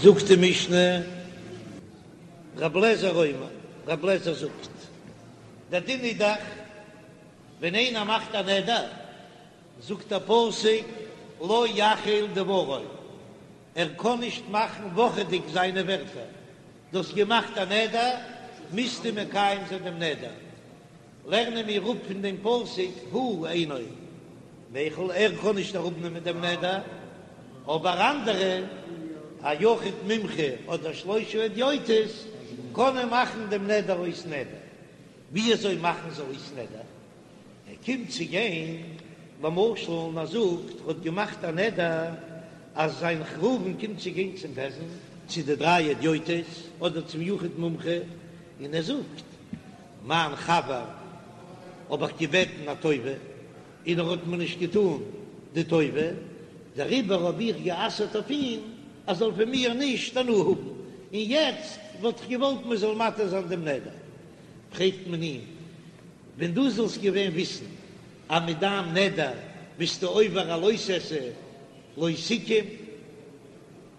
זאגט די משנה, רב לעזער אומר, רב לעזער זאגט, דער דין איז דאך, ווען איינער מאכט א נדר, זאגט דער פסוק, לא יחל דברו, ער קען נישט מאכן וואכעדיג זיינע ווערטער, דו האסט געמאכט א נדר, מוזטו מקיים זיין דעם נדר. לערנען מיר אפ פון דעם פסוק, הוא אינו מיחל, ער קען נישט אראפנעמען דעם נדר, אבער אנדערע, א יחיד מומחה אדער שלושה הדיוטות, קענען מאכן דעם נדר אויס נדר. ווי אזוי מאכן זיי אויס נדר? ער קומט צו גיין למשל און ער זאגט ער האט געמאכט א נדר אז זיין ראובן קומט צו גיין צום בית דין צו די דריי הדיוטות אדער צום יחיד מומחה און ער זאגט מיין חבר האב איך געבעטן א טובה און ער האט מיר נישט געטאן די טובה דעריבער האב איך גע'אסר'ט אויף אים ער זאל פון מיר נישט הנאה האבן און יעצט וואלט איך געוואלט מען זאל מתיר זיין דעם נדר פרעגט מען אים ווען דו זאלסט געווען וויסן אז מיט דיין נדר ביסטו עובר א לא תעשה, לא תקום,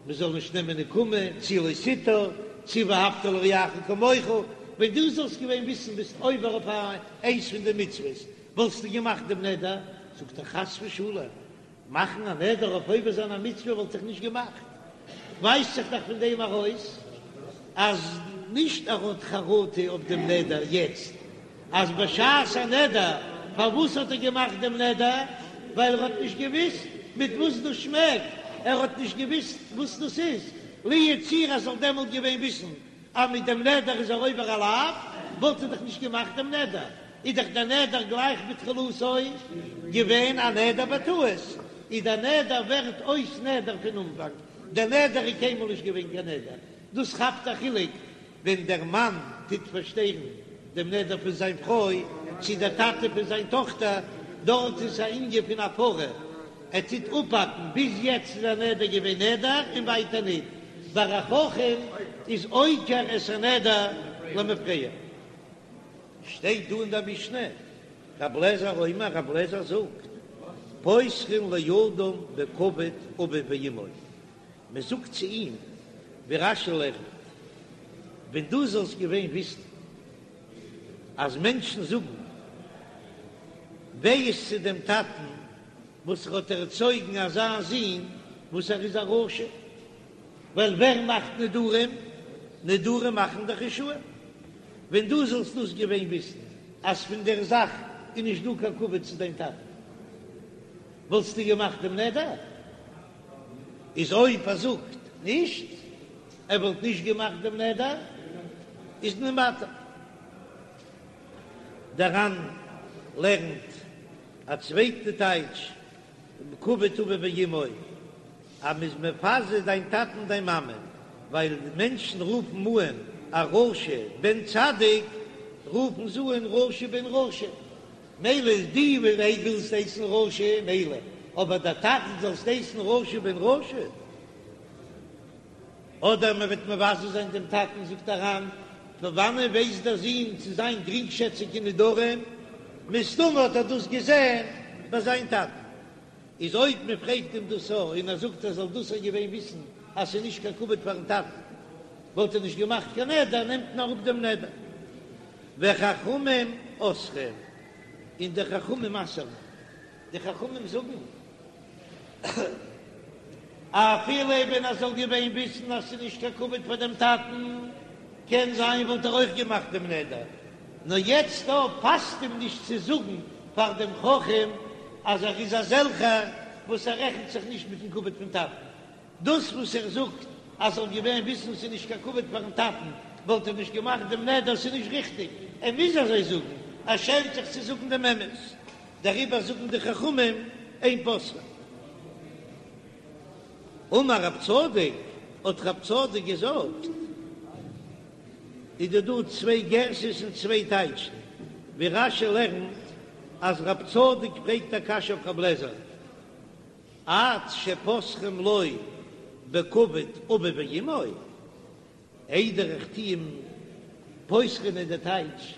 מען זאל נישט נעמען נקמה, צי לא תטור, צי ואהבת לרעך כמוך, ווען דו זאלסט געווען וויסן ביסט עובר אויף איינס פון די מצוות, וואלסטו געמאכט דעם נדר? זאגט ער חס ושלום, מאכן א נדר אויף עובר זיין א מצוה וואלט איך נישט געמאכט, ווייזט זיך דאך פון דעם ארויס אז נישט ער האט חרטה אויף דעם נדר יעצט, אז בשעת הנדר פארוואס האט ער געמאכט דעם נדר, ווייל ער האט נישט געוויסט מיט וואס דאס שמעקט, ער האט נישט געוויסט וואס דאס איז, לו יצויר ער זאל דעמאלט געווען וויסן אז מיט דעם נדר איז ער עובר א לאו, וואלט ער דאך נישט געמאכט דעם נדר, איז דאך דער נדר גלייך בתחילתו געווען א נדר בטעות, איז דער נדר ווערט אויס נדר פון אנפאנג, דער נדר איז קיינמאל נישט געווען קיין נדר, דאס כאפט א חילוק ווען דער מאן טוט פארשטערן דעם נדר פון זיין פרוי, צו דער טאטע פון זיין טאכטער, דארט איז א ענין פון הפרה, ער טוט אפהאקן, ביז יעצט איז א נדר געווען נדר און ווייטער ניט, ביי א חכם איז עוקר את הנדר למפרע. שטייט דא אין דער משנה, רב לעזער אומר, רב לעזער זאגט, פותחין לאדם בכבוד אביו ואמו, מען זאגט צו אים, ווי רש"י לערנט, ווען דו זאלסט געווען וויסן אז מענטשן זאגן וויי איז צו דעם טאטן וואס ער האט ערצויגן אזא זון וואס ער איז א רשע, ווייל ווער מאכט נדרים? נדרים מאכן דאך רשעים. ווען דו זאלסט דאס געווען וויסן אז פון דער זאך איז נישט דא קיין כבוד צו דיין טאטן, וואלסטו געמאכט דעם נדר? איז אויב ער זאגט נישט, ער וואלט נישט געמאכט דעם נדר, איז מען מתיר. דער ר"ן לערנט א צווייטע טייטש, כבוד אביו ואמו, אז מ'איז מבזה דיין טאטן און דיין מאמע, ווייל די מענטשן רופן אן א רשע בן צדיק, רופן זיי אן רשע בן רשע, מילא איז דו ווילסט הייסן רשע, מילא, אבער דער טאטן זאלסט הייסן רשע בן רשע? אדער מען וועט מבזה זיין דעם טאטן, זאגט דער ר"ן, פון וואנען ווייסט דער זון צו זיין גרינגשעציג אין נדרים? מסתמא האט ער דאס געזען ביי זיין טאטן. איז אויב מען פרעגט אים דאס א און ער זאגט ער זאל דאס א געווען וויסן אז ס'איז נישט קיין כבוד פארן טאטן, וואלט ער נישט געמאכט קיין נדר, נעמט מען אראפ דעם נדר. וחכמים אוסרים, און די חכמים אסר'ן. די חכמים זאגן, אפילו ווען ער זאל געווען וויסן אז ס'איז נישט קיין כבוד פאר דעם טאטן, קען זיין וואלט ער אויך געמאכט דעם נדר, נאר יעצט דא פאסט אים נישט צו זאגן פאר דעם חכם אז ער איז אזעלכער וואס ער רעכנט זיך נישט מיטן כבוד פון טאטן. דאס וואס ער זאגט אז זאל געווען וויסן ס'איז נישט קיין כבוד פארן טאטן וואלט ער נישט געמאכט דעם נדר, ס'איז נישט ריכטיג, ער מוז אזוי זאגן, ער שעמט זיך צו זאגן דעם אמת, דעריבער זאגן די חכמים אין פותחין. אמר רב צדוק, האט רב צדוק געזאגט, איז דא דא צוויי גירסאות און צוויי טייטשן, ווי רש"י לערנט אז רב צדוק פרעגט א קשיא אויף רב לעזער, עד שפותחין לו בכבוד אביו ואמו, איידער איך טו אים פותחין איז די טייטש,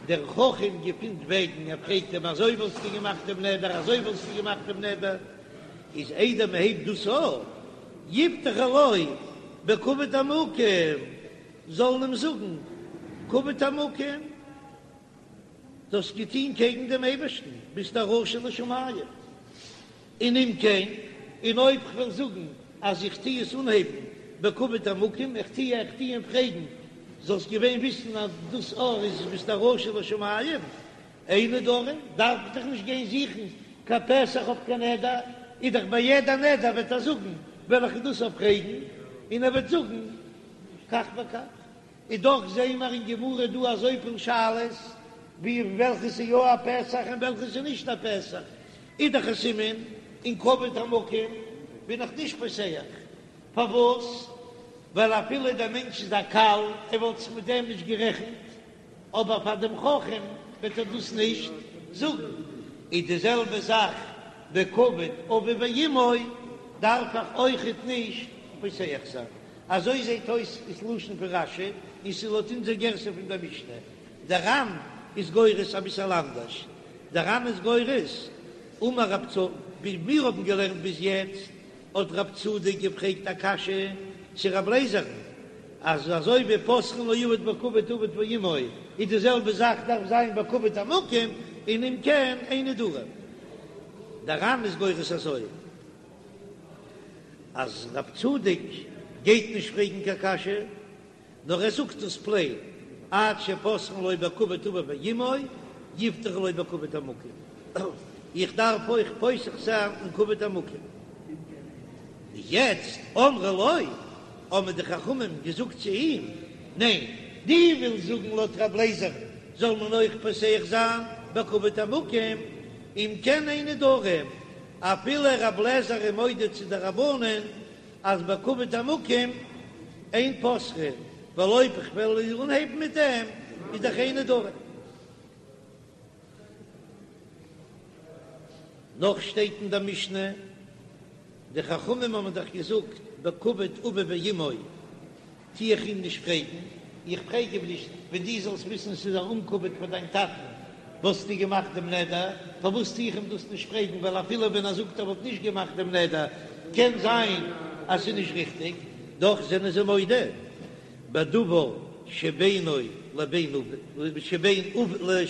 דער חכם געפינט וועגן, ער פרעגט אים אזוי וואלסטו געמאכט דעם נדר, אזוי וואלסטו געמאכט דעם נדר, איז איידער מען הייבט דאס אן, יפתחו לו. בכבוד המקום, זאלן אים זאגן כבוד המקום, דו האסט געטון קעגן דעם אייבערשטן, ביסט א רשע לשמים. און אם כן, און אויב כ'וועל זאגן אז איך טו עס אנהייבן בכבוד המקום, איך טו איך טו אים פרעגן, זאלסט געווען וויסן אז דאס אור איז ביסט א רשע לשמים, אין נדרים, דארף איך דאך נישט גיין זוכן קיין פתח אויף קיין נדר, איז דאך ביי יעדע נדר וועט ער זאגן וועל איך דאס אויך פרעגן, און ער וועט זאגן כך וכך. איז דאך זעהן מיר אין גמרא דא אזויפיל שאלות ווי וועלכע ס'איז יא א פתח און וועלכע ס'איז נישט א פתח, איז דאך א סימן אין כבוד המקום בין איך נישט פותח, פארוואס? ווייל אפילו דער מענטש איז א קל, ער וואלט זיך מיט דעם נישט גערעכנט, אבער פאר דעם חכם וועט ער דאס נישט זאגן. איז די זעלבע זאך בכבוד אביו ואמו דארף איך אויכעט נישט פותח זיין. אזוי זעט אויס איז לשון פון רש"י, און ס'איז לויט אונזער גירסא פון דער משנה. דער ר"ן איז גורס אביסעל אנדערש. דער ר"ן איז גורס, אמר רב צ, ווי מיר האבן געלערנט ביז יעצט, האט רב צדוק געפרעגט א קשיא צו רב לייזער'ן, אז אזוי ווי פותחין לאבד בכבוד אביו ואמו, איז די זעלבע זאך דארף זיין בכבוד המקום, און אם כן אין נדרים. דער ר"ן איז גורס אזוי. אז רב צדוק גייט נישט פרעגן קיין קשיא, נאר ער זאגט עס פלעין, עד שפותחין לו בכבוד אביו ואמו, יפתחו לו בכבוד המקום. איך דארף אויך פותח זיין אין כבוד המקום. יעצט אמרו לו, האבן די חכמים געזאגט צו אים, ניין, דו ווילסט זאגן לויט רב לייזער זאל מען אויך פותח זיין בכבוד המקום, אם כן אין נדרים, אפילו רב לעזער איז מודה צו די רבנן אז בכבוד המקום אין פותחין, ווייל אויב איך וועל אנהייבן מיט דעם איז דאך אין נדרים. נאך שטייט אין דער משנה, די חכמים האבן דאך געזאגט בכבוד אביו ואמו. טו איך אים נישט פרעגן, איך פרעג אים נישט, ווען דו זאלסט וויסן ס'איז א אומכבוד פאר דיין טאטן וואלסטו געמאכט דעם נדר, פארוואס טו איך אים דאס נישט פרעגן, ווייל אפילו ווען ער זאגט ער וואלט נישט געמאכט דעם נדר, קען זיין אז ס'איז נישט ריכטיג, דאך זענען זיי מודה בדבר שבינו לבין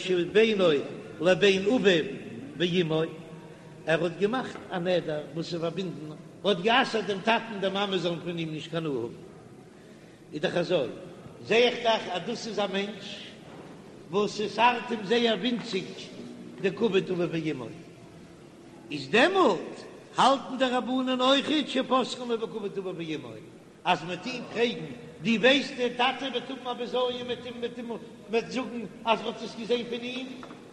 שבינו לבין אביו ואמו, ער האט געמאכט א נדר וואס איז פארבינדן, ער האט גע'אסר'ט דעם טאטן די מאמע זאלן פון אים נישט קיין הנאה האבן. איז דאך אזוי, זע איך דאך אז דאס איז א מענטש וואס עס ארט אים זייער ווינציג די כבוד אביו ואמו, איז דעמאלט האלטן די רבנן אויכעט שפותחין לו בכבוד אביו ואמו, אז מ'וועט אים פרעגן, דו ווייסט דער טאטע וועט האבן א בזיון מ'וועט אים מ'וועט אים מ'וועט זאגן אז מ'האט עס געזען פון אים,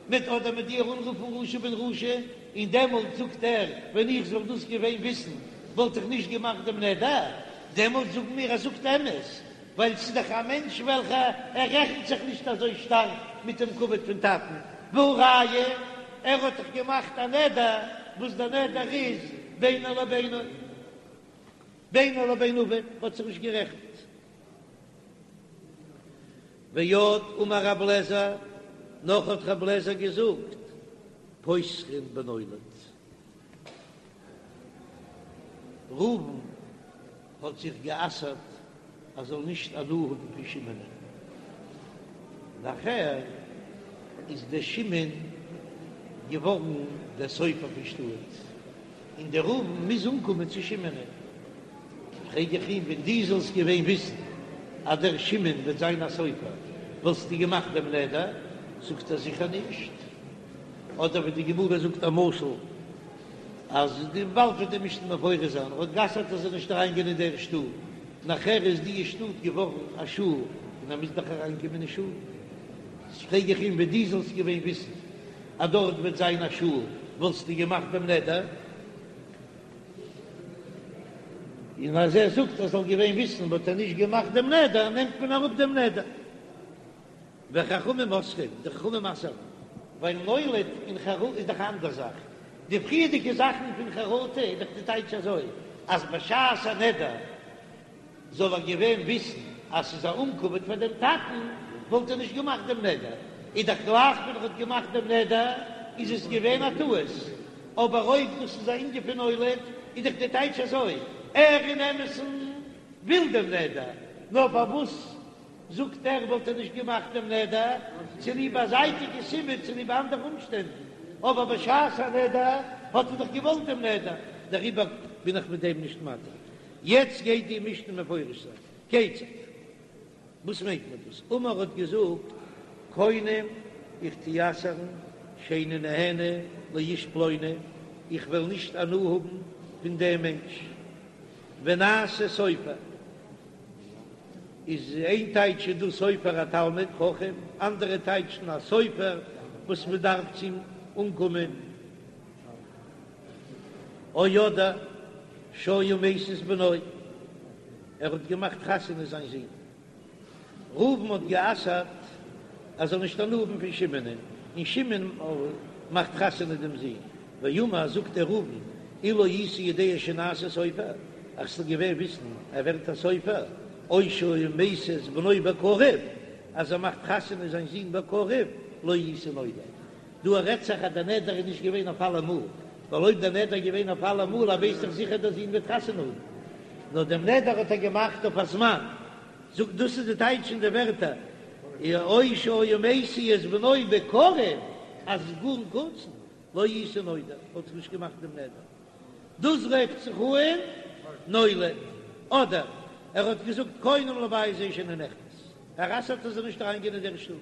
מ'וועט אדער מ'וועט דיר אנרופן רשע בן רשע, און דעמאלט זאגט ער, ווען איך זאל דאס געווען וויסן וואלט איך נישט געמאכט דעם נדר, דעמאלט זאגן מיר ער זאגט אמת, ווייל ס'איז דאך א מענטש וועלכע ער רעכנט זיך נישט אזוי שטארק מיט דעם כבוד פון טאטן, והא ראיה, ער האט דאך געמאכט א נדר וואס דער נדר איז בינו לבינו. בינו לבין אביו האט זיך נישט גערעכנט. ועוד אמר רב לעזער, נאך האט רב לעזער געזאגט, פותחין בנולד. ראובן האט זיך גע'אסר'ט ער זאל נישט הנאה האבן פון שמעונ'ען. נאכער איז דער שמעון געווארן דער סופר פון שטאט, און דער ראובן מוז אנקומען צו שמעונ'ען. פרעג איך אים, ווען דו זאלסט געווען וויסן אז דער שמעון וועט זיין א סופר, וואלסטו געמאכט דעם נדר? זאגט ער, זיכער נישט. אדער ווי די גמרא זאגט א משל, אז די באלד וועט די משנה מפרש זיין, ער האט גע'אסר'ט ער זאל נישט אריינגיין אין דער שטאט, נאכער איז די שטאט געווארן א שול, און ער מוז דאך אריינקומען אין שול. פרעג איך אים, ווען דו זאלסט געווען וויסן אז דארט וועט זיין א שול, וואלסטו געמאכט דעם נדר? און אז ער זאגט ער זאל געווען וויסן וואלט ער נישט געמאכט דעם נדר, נעמט מען אראפ דעם נדר. וחכמים אוסרים, די חכמים אסר'ן, ווייל נולד און חרטה איז דאך א אנדער זאך, די פריערדיגע זאכן פון חרטה איז דאך די טייטש אזוי, אז בשעת הנדר זאל ער געווען וויסן אז ס'איז א אומכבוד פאר דעם טאטן, וואלט ער נישט געמאכט דעם נדר, איז דאך גלייך ווען ער האט געמאכט דעם נדר איז עס געווען א טעות, אבער אויב דאס איז א ענין פון נולד איז דאך די טייטש אזוי, ער אין אמת'ן. וויל דעם נדר, נאר פארוואס זאגט ער וואלט ער נישט געמאכט דעם נדר, צוליב א זייטיגע סיבה, צוליב אנדערע אומשטענדן, אבער בשעת הנדר האט ער דאך געוואלט דעם נדר, דעריבער בין איך מיט דעם נישט מתיר. יעצט גייט די משנה מפרש זיין, כיצד? וואס מיינט מען דאס? אמר האט געזאגט, קונם איך טו אסר'ן שאיני נהנה לאיש פלוני, איך וועל נישט הנאה האבן פון דעם מענטש, ונעשה סופר, איז איין טייטש איז דא סופר א תלמיד חכם, אנדערע טייטשן א סופר וואס מען דארף צו אים אנקומען, או אדער שהיה משיא את בנו, ער האט געמאכט חתונה זיין זון. ראובן האט גע'אסר'ט ער זאל נישט הנאה האבן פון שמעונ'ען, און שמעון מאכט חתונה דעם זון. ואמר, זאגט דער ראובן, אילו הייתי יודע שנעשה סופר, איך זאל געווען וויסן ער ווערט א סופר, או שהיה משיא את בנו בקרוב, אז ער מאכט חתונה זיין זון בקרוב, לא הייתי נודר. דא רעדט זיך אז דער נדר איז נישט געווען אויף אלעמאל, ווייל אויב דער נדר איז געווען אויף אלעמאל, ער ווייסט דאך זיכער דער זון וועט חתונה האבן, נאר דעם נדר האט ער געמאכט אויף א זמן. זאגט דאס איז די טייטש אין די ווערטער או שהיה משיא את בנו בקרוב, אז גאר אין קורצן, לא הייתי נודר, וואלט איך נישט געמאכט דעם נדר. דאס רופט זיך אן נולד, אדער ער האט געזאגט קונם לבית זה שאיני נכנס, ער אסר'ט ער זאל נישט אריינגיין אין דער שטוב,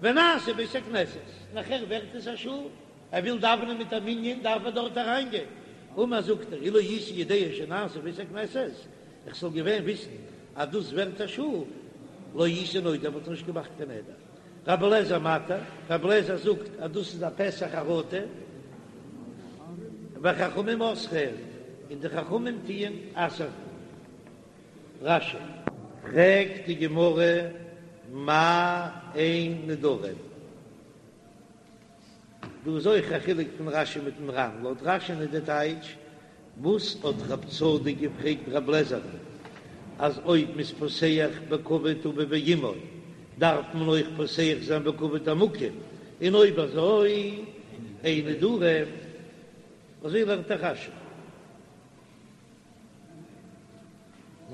ונעשה בית הכנסת, נאכער ווערט עס א שול, ער וויל דאווענען מיט א מנין דארף ער דארט אריינגיין, אמר זאגט ער אילו הייתי יודע שנעשה בית הכנסת, איך זאל געווען וויסן אז דאס ווערט א שול, לא הייתי נודר וואלט איך נישט געמאכט קיין נדר. רבי אליעזר מתיר, רבי אליעזר זאגט אז דאס איז א פתח חרטה, וחכמים אוסרין, און די חכמים טוען אסר'ן. רש"י. פרעגט די גמרא מאי אין נדרים? דא איז אויך א חילוק פון רש"י מיטן ר"ן, לויט רש"י'ן איז די טייטש, וואס האט רב צדוק געפרעגט רב לעזער'ן אז אויב מ'איז פותח בכבוד אביו ואמו דארף מען אויך פותח זיין בכבוד המקום, און אויב אזוי אין נדרים, אזוי לערנט דאך רש"י.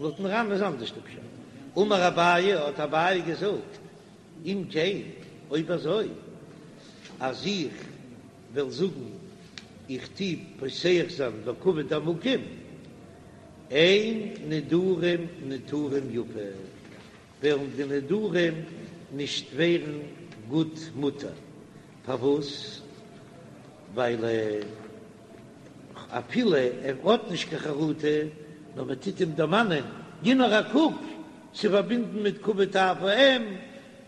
לויטן ר"ן איז אנדערש די פשט. אמר אביי, האט אביי געזאגט, אם כן, אויב אזוי, אז איך וועל זאגן איך טו פותח זיין בכבוד המקום, אין נדרים נותרים יפה, וועלן די נדרים נישט ווערן גוט מותר. פארוואס? ווייל אפילו ער האט נישט קיין חרטה, נאר מען טוט אים דערמאנען, גיב נאר א קוק, ס'איז פארבינדן מיט כבוד אב ואם,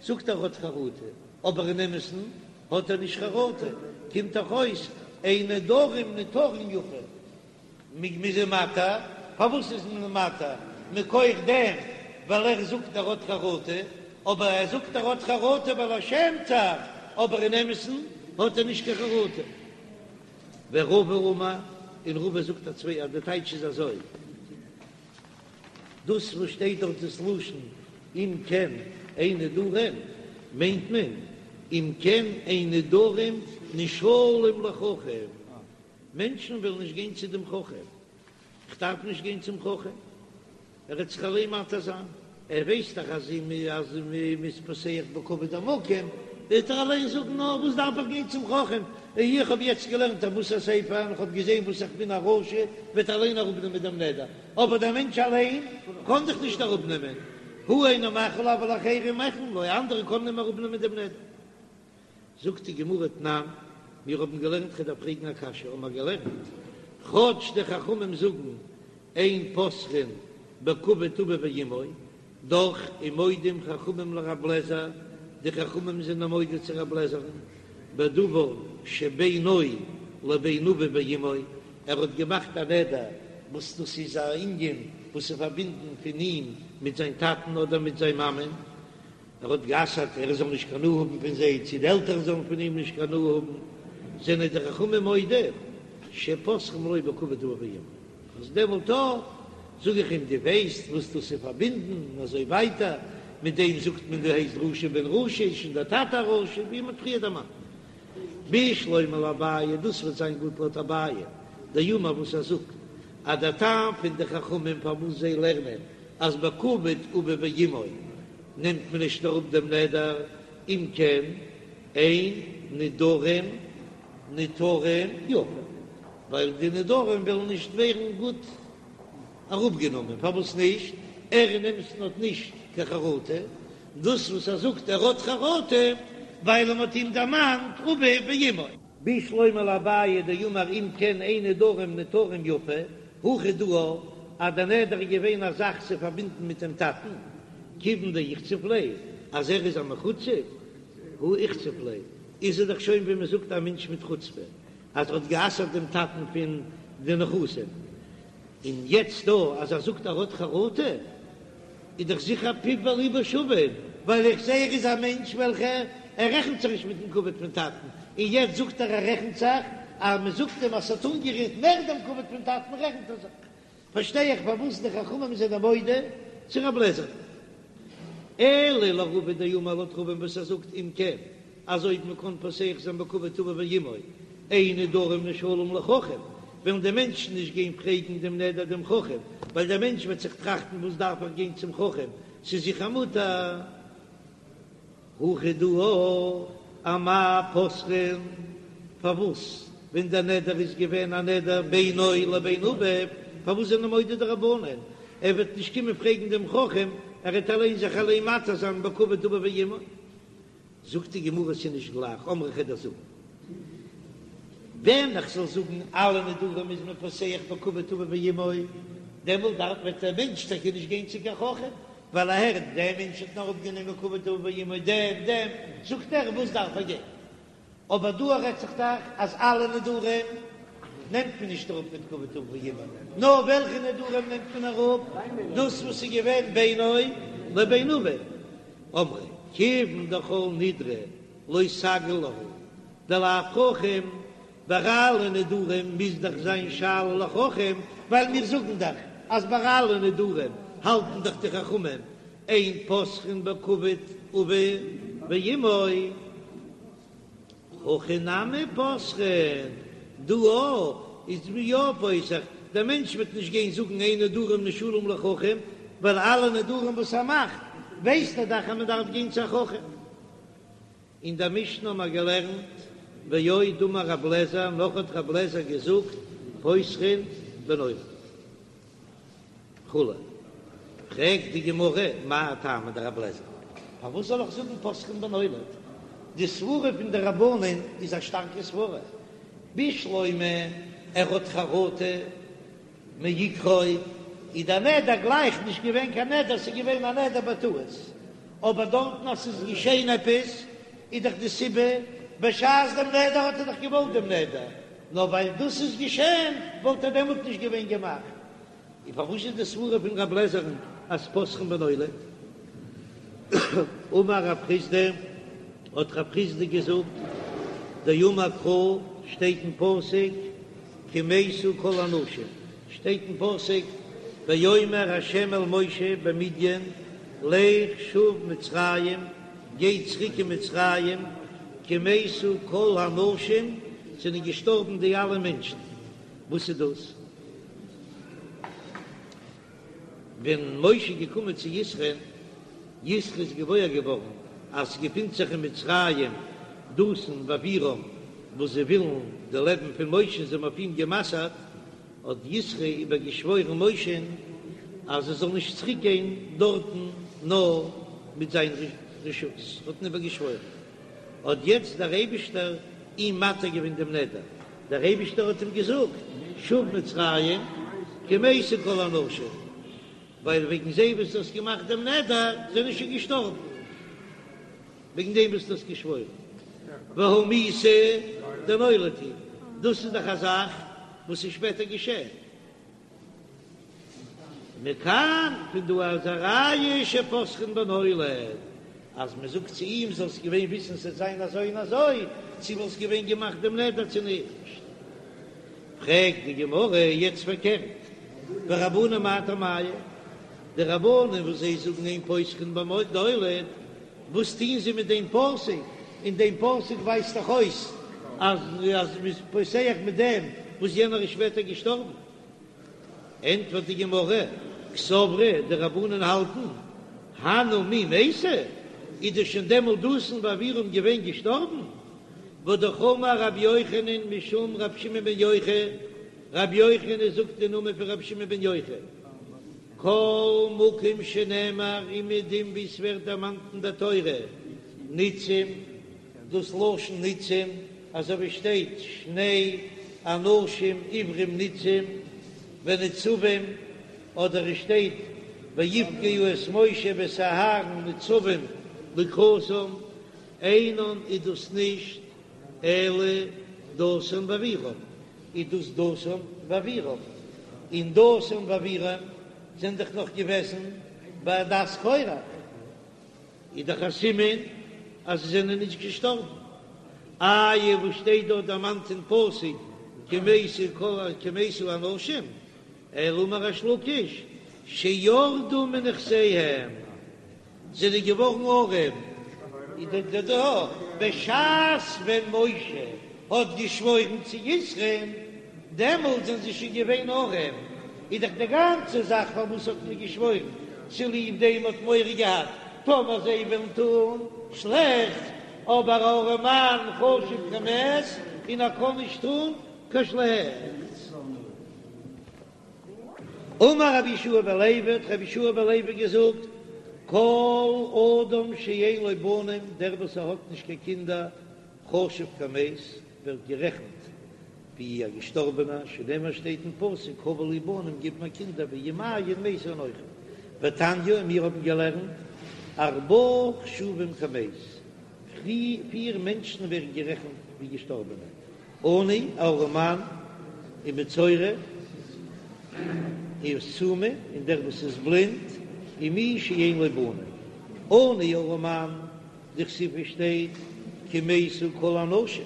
זאגט ער האט חרטה, אבער אין אמת'ן האט ער נישט חרטה, קומט דאך אויס אין נדרים נותרים יפה. מ'איז אים מתיר, פארוואס איז מען מתיר? מכח דעם ווייל ער זאגט ער האט חרטה, אבער ער זאגט ער האט חרטה ווייל ער שעמט זיך, אבער אין אמת'ן האט ער נישט קיין חרטה. ורבא אמר, און רבא זאגט א צוויי אז די טייטש איז אזוי, דאס וואס שטייט דארט דאס לשון אם כן אין נדרים, מיינט מען אם כן אין נדרים נשאלים לחכם, מענטשן וועלן נישט גיין צו דעם חכם, איך דארף נישט גיין צום חכם, ער וועט זיך אליין מתיר זיין, ער ווייסט דאך אז אז מ'איז פותח בכבוד המקום, וועט ער אליין זאגן, נו, וואס דארף איך גיין צום חכם, איך האב יעצט געלערנט א מוסר ספר און איך האב געזען וואס איך בין א רשע, וועט ער אליין אראפנעמען דעם נדר, אבער דער מענטש אליין קען דאך נישט אראפנעמען, הוא אינו מחיל אבל אחרים מוחלים לו, אנדערע קענען אים אראפנעמען דעם נדר. זאגט די גמרא תנן, מיר האבן געלערנט כ'דארף פרעגן א קשיא, האבן מיר געלערנט, כאטש די חכמים זאגן אין פותחין בכבוד אביו ואמו, דאך ומודים חכמים לרב לעזער, די חכמים זענען מודה צו רב לעזער'ן, בדבר שבינו לבין אביו ואמו, ער האט געמאכט א נדר וואס דאס איז א ענין וואס איז פארבינדן פון אים מיט זיין טאטן אדער מיט זיין מאמען, ער האט גע'אסר'ט ער זאל נישט קיין הנאה האבן פון זיי, צו די עלטערן זאלן פון אים נישט קיין הנאה האבן, זענען די חכמים מודה שפותחין לו בכבוד אביו ואמו, אז דעמאלט אויך זאג איך אים דו ווייסט וואס דאס איז פארבינדן און אזוי ווייטער, מיט דעם זאגט מען דו הייסט רשע בן רשע איז שוין דער טאטע א רשע, ווי מען האט פריער דערמאנט. בשלמא לאביי, דאס וועט זיין גוט לויט אביי דאמר וואס ער זאגט אז דער טעם פון די חכמים פארוואס זיי לערנען. אז בכבוד אביו ואמו נעמט מען נישט אראפ דעם נדר, אם כן אין נדרים נותרים יפה, ווייל די נדרים וועלן נישט ווערן גוט אראפגענומען, פארוואס נישט? ער אין אמת'ן האט נישט קיין חרטה, דאס וואס ער זאגט ער האט חרטה ווייל מען האט אים דערמאנט אביו ואמו. בשלמא לאביי דאמר אם כן אין נדרים נותרים יפה, הכא דא אז דער נדר איז געווען א זאך צו פארבינדן מיט דעם טאטן, כיוון דאיחצף ליה, אז ער איז א מחוצף, הא איחצף ליה, איז ער דאך שוין ווי מען זאגט א מענטש מיט חוצפה, אז ער האט גע'אסר'ט דעם טאטן פון די נכסים, און יעצט דא אז ער זאגט ער האט חרטה, איז דאך זיכער פיו וליבו שווין, ווייל איך זעה ער איז א מענטש וועלכע ער רעכנט זיך נישט מיטן כבוד פון טאטן, און יעצט זאגט ער ער רעכנט זיך, אז מען זאגט אים אז ס'האט אנגערירט מער דעם כבוד פון טאטן רעכנט ער זיך. פארשטיי איך פארוואס די חכמים זענען מודה צו רב לעזער. אלא לרבא דאמר לויט רבא'ן וואס ער זאגט אם כן אז אויב מען קען פותח זיין בכבוד אביו ואמו אין נדרים נשאלים לחכם וועלן די מענטשן נישט גיין פרעגן דעם נדר דעם חכם ווייל דער מענטש וועט זיך טראכטן וואס דארף איך גיין צום חכם ס'איז זיכער מותר. הכא דא אמאי פותחין, פארוואס ווען דער נדר איז געווען א נדר בינו לבין אביו, פארוואס זענען מודה די רבנן, ער וועט נישט קומען פרעגן דעם חכם, ער וועט אליין זיך אליין מתיר זיין בכבוד אביו ואמו. זאגט די גמרא ס'איז נישט גלייך, אמרי כ'וועל דיר זאגן, ווען איך זאל זאגן אלע נדרים איז מען פותח בכבוד אביו ואמו, דעמאלט דארף וועט דער מענטש טאקע נישט גיין צו קיין חכם, ווייל ער הערט דער מענטש האט נאר אפגענומען כבוד אביו ואמו דעם דעם זאגט ער וואס דארף ער גיין, אבער דא רעדט זיך דאך אז אלע נדרים נעמט מען נישט אראפ מיט כבוד אביו ואמו, נאר וועלכע נדרים נעמט מען אראפ? דאס וואס איז געווען בינו לבין אביו, אמרי כיוון דכל נדרי לא סגי להו דלאו חכם, ביי אלע נדרים מוז דאך זיין שאלה לחכם, ווייל מיר זאגן דאך אז ביי אלע נדרים האלטן דאך די חכמים אין פותחין בכבוד אביו ואמו, הכא נמי פותחין, דא אויך איז מען יא פותח, דער מענטש וועט נישט גיין זאגן אין נדרים נשאלים לחכם, ווייל אלע נדרים וואס ער מאכט ווייסט ער דאך אז מען דארף גיין צו א חכם. אין דער משנה האבן מיר געלערנט, ועוד אמר רב לעזער, נאך האט רב לעזער געזאגט, פותחין בנולד וכו'. פרעגט די גמרא, מאי טעמא דרב לעזער, פארוואס זאל איך זאגן פותחין בנולד? די סברה פון די רבנן איז א שטארקע סברה, בשלמא ער האט חרטה מעיקרא איז דער נדר גלייך נישט געווען קיין נדר, ס'איז געווען א נדר בטעות, אבער דארטן אז ס'איז געשען עפעס איז דאך די סיבה, בשעת דעם נדר האט ער דאך געוואלט דעם נדר, נאר ווייל דאס איז געשען וואלט ער דעמאלט נישט געווען געמאכט. און פארוואס איז די סברה פון רב לעזער'ן אז פותחין בנולד? אמר רב חסדא, האט רב חסדא געזאגט, דאמר קרא, שטייט אין פסוק, כי מתו כל האנשים, שטייט אין פסוק, ויאמר ה' אל משה במדין, לך שוב מצרים, גיי צוריק אין מצרים, כי מתו כל האנשים, זענען געשטארבן די אלע מענטשן. וואס איז דאס? ווען משה איז געקומען צו יתרו'ן, יתרו איז געוואויר געווארן אז ס'געפינט זיך אין מצרים דתן ואבירם וואס זיי ווילן די לעבן פון משה, זיי האבן אויף אים גע'מסר'ט, האט יתרו איבערגעשוואוירן משה'ן אז ער זאל נישט צוריק גיין דארטן נאר מיט זיין רשות, האט אים איבערגעשוואוירן, האט יעצט דער אייבישטער אים מתיר געווען דעם נדר, דער אייבישטער האט אים געזאגט, שוב מצרים כי מתו כל האנשים, ווייל וועגן זיי וואס דו האסט געמאכט דעם נדר זענען שוין געשטארבן, וועגן דעם וואס דו האסט געשוואוירן, והא מיתה דנולד היא, דאס איז דאך א זאך וואס איז שפעטער געשען. מכאן, פון דא איז א ראיה שפותחין בנולד, אז מען זאגט צו אים זאלסט געווען וויסן ס'עט זיין אזוי און אזוי, צו וואלסט געווען געמאכט דעם נדר צו נישט. פרעגט די גמרא יעצט פארקערט, ורבנן מאי טעמייהו, די רבנן וואס זיי זאגן אין פותחין בנולד, וואס טוען זיי מיט דעם פסוק? אין דעם פסוק ווייזט דאך אויס אז אז מ'איז פותח מיט דעם וואס יענער איז שפעטער געשטארבן. ענטפערט די גמרא, קסברי, די רבנן האלטן, הנהו מי מייתי, איז דאס שוין דעמאלט דתן ואבירם געווען געשטארבן? והא אמר רבי יוחנן משום רבי שמעון בן יוחאי, רבי יוחנן זאגט אין נאמען פון רבי שמעון בן יוחאי, כל מקום שנאמר אומעדום ווי ס'ווערט דערמאנט אין דער תורה ניצים, דאס לשון ניצים, אזוי ווי שטייט שני אנשים עברים ניצים ונצבים, אדער עס שטייט ויפגעו את משה ואת אהרן נצבים לקראתם, אינן איז דאס נישט אלא דתן ואבירם, איז דאס דתן ואבירם, און דתן ואבירם זענען דאך נאך געוועזן בעדת קורח. איז דאך א סימן אז זיי זענען נישט געשטארבן. איי וואס שטייט דארט דערמאנט אין פסוק כי מתו כל כי מתו האנשים, אלא אמר ריש לקיש שירדו מנכסיהם, זענען געווארן ארעם, איז דאך דא בשעת ווען משה האט געשוואוירן צו יתרו'ן, דעמאלט זענען זיי שוין געווען ארעם, איז דאך די גאנצע זאך פארוואס האט מען געשוואוירן, צוליב דעם האט מורא געהאט טאמער זיי וועלן טון שלעכטס, אבער א ארעמאן חשוב כמת און ער קען נישט טון קיין שלעכטס. אמר רבי יהושע בן לוי, האט רבי יהושע בן לוי געזאגט, כל אדם שאין לו בנים, דער וואס ער האט נישט קיין קינדער, חשוב כמת, ווערט גערעכנט ווי א געשטארבענער, שנאמר שטייט אין פסוק הבה לי בנים גיב מיר קינדער ואם אין מתה אנכי, ותניא און מיר האבן געלערנט ארבעה חשובים כמת, פיר מענטשן ווערן גערעכנט ווי געשטארבענע, עני, א ארעמאן, ומצורע, וסומא, און דער וואס איז בלינד, ומי שאין לו בנים, עני ארעמאן, דכתיב שטייט כי מתו כל האנשים,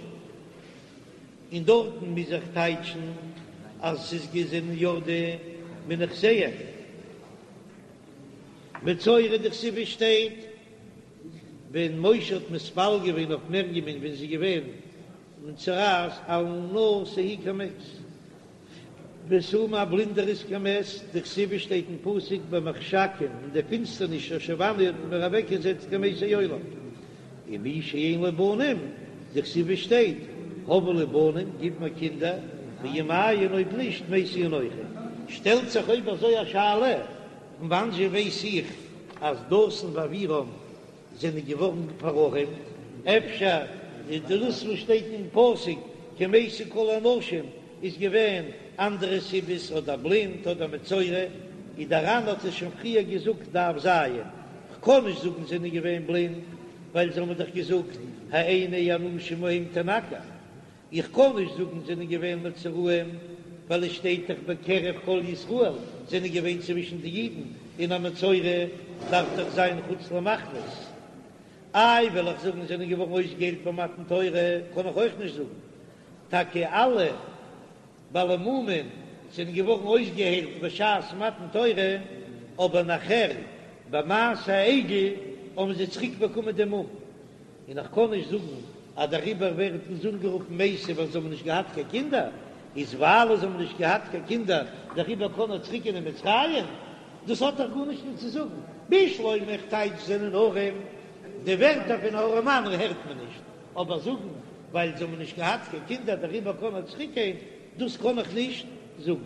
און דארטן מוז איך טייטשן אז ס'איז געוועזן ירדו מנכסיהם. מצורע דכתיב שטייט ווען משה האט מתפלל געווען אויף מרים'ען ווען זי איז געווען מצורעת אל נא תהי כמת. וסומא א בלינדער איז כמת, דכתיב שטייט אין פסוק במחשכים אין די פינסטערניש הושיבני האט מען מיר אוועקגעזעצט כמתי עולם, ומי שאין לו בנים, דכתיב שטייט הבה לי בנים גיב מיר קינדער, ואם אין אויב נישט מתה אנכי. שטעלט זיך אויב אזוי א שאלה, פון וואנזשע ווייס איך אז דתן ואבירם זענען געווארן פארארעמט, אפשר איז דאס וואס שטייט אין פסוק כי מתו כל האנשים איז געווען אנדערע סיבות אדער בלינד אדער מצורע, איז דער ר"ן האט עס שוין פריער געזאגט דף ז, כ'קען נישט זאגן זענען געווען בלינד ווייל זיי האבן דאך געזאגט העיני האנשים ההם תנקר, איך קען נישט זאגן זענען געווען מצורעים, ווייל עס שטייט דאך בקרב כל ישראל זענען געווען צווישן די אידן, און א מצורע דארף דאך זיין חוץ למחנות. איי וועל איך זאגן זענען געווארן אויסגעהיילט ביי מתן תורה, קען איך אויך נישט זאגן. טאקע אלע בעלי מומין זענען געווארן אויסגעהיילט בשעת מתן תורה, אבער נאכער ביי מעשה העגל האבן זיי צוריק באקומען דעם מום. און איך קען נישט זאגן אז דעריבער ווערט אונז אנגערופן מתים ווייל זיי האבן נישט געהאט קיין קינדער, איז ווייל זיי האבן נישט געהאט קיין קינדער דעריבער קען ער צוריק גיין אין מצרים? דאס האט דאך גארנישט נישט צו זאגן. בשלמא איך טייטש זענען ארעם, די ווערטער פון ארעמאן הערט מען נישט, אבער זאגן ווייל זיי האבן נישט געהאט קיין קינדער דעריבער קען ער צוריק גיין, דאס קען איך נישט זאגן.